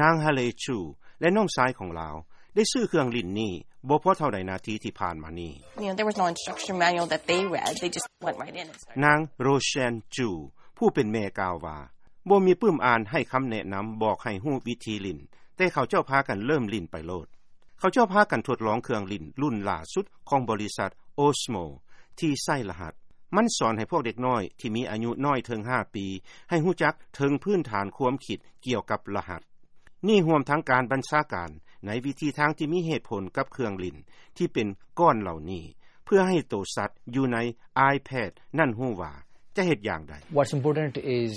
ນາງ Hale Chu ແລະ ນ້ອງຊາຍຂອງລາວ ໄດ້ຊື້ເຄື່ອງຫຼິ້ນນີ້ ບໍ່ພໍເທົ່າໃດນາທີທີ່ຜ່ານມານີ້. You know, there was no instruction manual that they read. They just went right in and started. ນາງ Roshan Chu ຜູ້ເປັນແມ່ກ່າວວ່າ ບໍ່ມີປຶ້ມອ່ານໃຫ້ຄຳແນະນຳ ບອກໃຫ້ຮູ້ວິທີຫຼິ້ນ, ແຕ່ເຂົາເຈົ້າພາກັນເລີ່ມຫຼິ້ນໄປໂລດ. ເຂົາເຈົ້າພາກັນທົດລອງເຄື່ອງຫຼິ້ນລຸ້ນຫຼ້າສຸດຂອງບໍລິສັດ Osmo ທີ່ໃຊ້ລະຫັດ. ມັນສອນໃຫ້ພວກເດັກນ້ອຍທີ່ມີອາຍຸນ້ອຍເຖິງຫ້າປີ ໃຫ້ຮູ້ຈັກເຖິງພື້ນຖານຄວາມຄິດກ່ຽວກັບລະຫັດ. ນີ້ຮວມທັງການບັນຊາການໃນວິທີທາງທີ່ມີເຫດຜົນກັບເຄື່ອງຫຼິ້ນທີ່ເປັນກ້ອນເຫຼົ່ານີ້ ເພື່ອໃຫ້ໂຕສັດຢູ່ໃນ iPad ນັ້ນຮູ້ວ່າຈະເຮັດຢ່າງໃດ. What's important is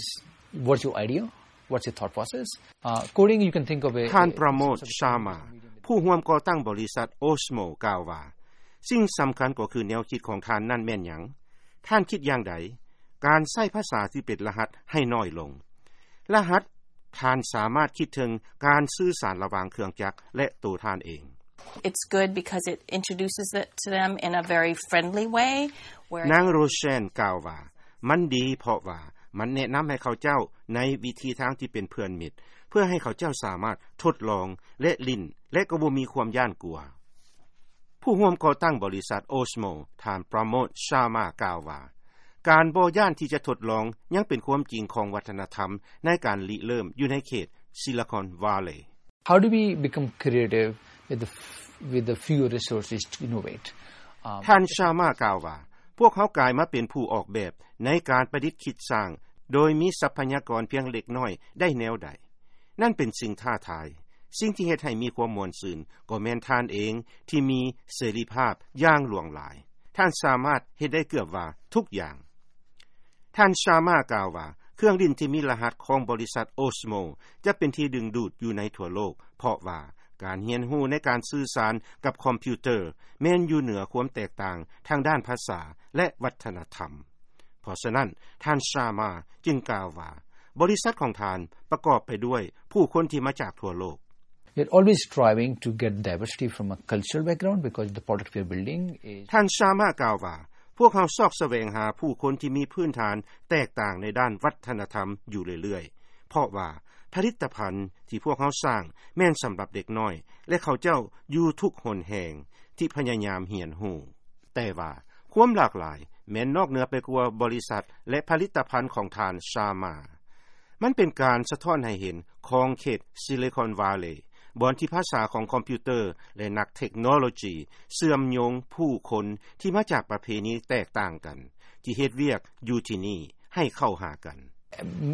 what's your idea, what's your thought process. Uh, coding, you can think of it. ທ່ານ ປຣະໂມດ ຊາມາ ຜູ້ຮ່ວມກໍ່ຕັ້ງບໍລິສັດ Osmo ກ່າວວ່າ ສິ່ງສຳຄັນກໍຄືແນວຄິດຂອງທ່ານນັ້ນແມ່ນຫຍັງ? ທ່ານຄິດຢ່າງໃດ? ການໃຊ້ພາສາທີ່ເປັນລະຫັດໃຫ້ນ້ອຍລົງ. ລະຫັດ ທ່ານສາມາດຄິດເຖິງການສື່ສານລະຫວ່າງເຄື່ອງຈັກ ແລະ ໂຕທ່ານເອງ. It's good because it introduces it to them in a very friendly way, where ນາງ Roshan ກ່າວວ່າ ມັນດີເພາະວ່າມັນແນະນຳໃຫ້ເຂົາເຈົ້າໃນວິທີທາງທີ່ເປັນເພື່ອນມິດ ເພື່ອໃຫ້ເຂົາເຈົ້າສາມາດທົດລອງ ແລະ ຫຼິ້ນ ແລະ ກໍບໍ່ມີຄວາມຢ້ານກົວ. ຜູ້ຮ່ວມກໍ່ຕັ້ງບໍລິສັດ Osmo ທ່ານ ປຣະໂມດ ຊາມາ ກ່າວວ່າ ການບໍ່ຢ້ານທີ່ຈະທົດລອງຍັງເປັນຄວາມຈິງຂອງວັດທະນະທຳໃນການລິເລີ່ມຢູ່ໃນເຂດ Silicon Valley. How do we become creative with the f-, with the fewer resources to innovate? Um, ທ່ານ ຊາມາ ກ່າວວ່າ ພວກເຮົາກາຍມາເປັນຜູ້ອອກແບບໃນການປະດິດຄິດສ້າງ ໂດຍມີຊັບພະຍາກອນພຽງເລັກນ້ອຍໄດ້ແນວໃດ? ນັ້ນເປັນສິ່ງທ້າທາຍ. ສິ່ງທີ່ເຮັດໃຫ້ມີຄວາມມ່ວນຊື່ນກໍແມ່ນທ່ານເອງທີ່ມີເສລີພາບຢ່າງຫຼວງຫຼາຍ. ທ່ານສາມາດເຮັດໄດ້ເກືອບວ່າທຸກຢ່າງ. ທ່ານ ຊາມາ ກ່າວວ່າ ເຄື່ອງຫຼິ້ນທີ່ມີລະຫັດຂອງບໍລິສັດ Osmo ຈະເປັນທີ່ດຶງດູດຢູ່ໃນທົ່ວໂລກ ເພາະວ່າການຮຽນຮູ້ໃນການສື່ສານກັບຄອມພິວເຕີ ແມ່ນຢູ່ເໜືອຄວາມແຕກຕ່າງທາງດ້ານພາສາ ແລະ ວັດທະນະທຳ. ເພາະສະນັ້ນ ທ່ານ ຊາມາ ຈຶ່ງກ່າວວ່າ ບໍລິສັດຂອງທ່ານປະກອບໄປດ້ວຍຜູ້ຄົນທີ່ມາຈາກທົ່ວໂລກ. We're always striving to get diversity from a cultural background because the product we're building is. ທ່ານ ຊາມາ ກ່າວວ່າ ພວກເຮົາຊອກສະແຫວງຫາຜູ້ຄົນທີ່ມີພື້ນຖານແຕກຕ່າງໃນດ້ານວັດທະນະທຳຢູ່ເລື້ອຍໆ ເພາະວ່າຜະລິດຕະພັນທີ່ພວກເຮົາສ້າງແມ່ນສຳລັບເດັກນ້ອຍ ແລະ ເຂົາເຈົ້າຢູ່ທຸກຫົນແຫ່ງທີ່ພະຍາຍາມຮຽນຮູ້. ແຕ່ວ່າຄວາມຫຼາກຫຼາຍແມ່ນນອກເໜືອໄປກວ່າບໍລິສັດ ແລະ ຜະລິດຕະພັນຂອງທ່ານ ຊາມາ. ມັນເປັນການສະທ້ອນໃຫ້ເຫັນຂອງເຂດ Silicon Valley ບ່ອນທີ່ພາສາຂອງຄອມພິວເຕີ ແລະ ນັກເທັກໂນໂລຈີເຊື່ອມໂຍງຜູ້ຄົນທີ່ມາຈາກປະເພນີແຕກຕ່າງກັນ ທີ່ເຮັດວຽກຢູ່ທີ່ນີ້ໃຫ້ເຂົ້າຫາກັນ.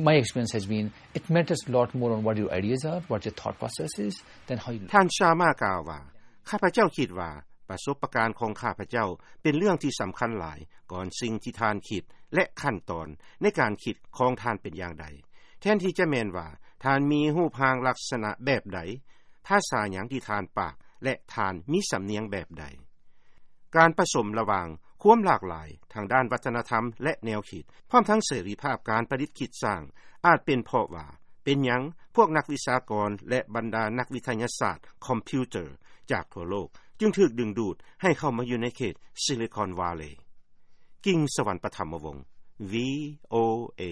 My experience has been, it matters a lot more on what your ideas are, what your thought process is, than how you look. ທ່ານ ຊາມາ ກ່າວວ່າ ຂ້າພະເຈົ້າຄິດວ່າປະສົບປະການຂອງຂ້າພະເຈົ້າເປັນເລື່ອງທີ່ສຳຄັນຫຼາຍກ່ອນສິ່ງທີ່ທ່ານຄິດ ແລະ ຂັ້ນຕອນໃນການຄິດຂອງທ່ານເປັນຢ່າງໃດ ແທນທີ່ຈະແມ່ນວ່າທ່ານມີຮູບຮ່າງລັກສະນະແບບໃດ, ພາສາຫຍັງທີ່ທ່ານປາກ ແລະ ທ່ານມີສຳນຽງແບບໃດ. ການປະສົມລະຫວ່າງຄວາມຫຼາກຫຼາຍທາງດ້ານວັດທະນະທຳ ແລະ ແນວຄິດ ພ້ອມທັງເສລີພາບການປະດິດຄິດສ້າງ ອາດເປັນເພາະວ່າ ເປັນຫຍັງພວກນັກວິຊາກອນ ແລະ ບັນດານັກວິທະຍາສາດຄອມພິວເຕີຈາກທົ່ວໂລກ ຈຶ່ງຖືກດຶງດູດໃຫ້ເຂົ້າມາຢູ່ໃນເຂດ Silicon Valley. ກິ່ງສະຫວັນ ປະຖຳມະວົງ VOA.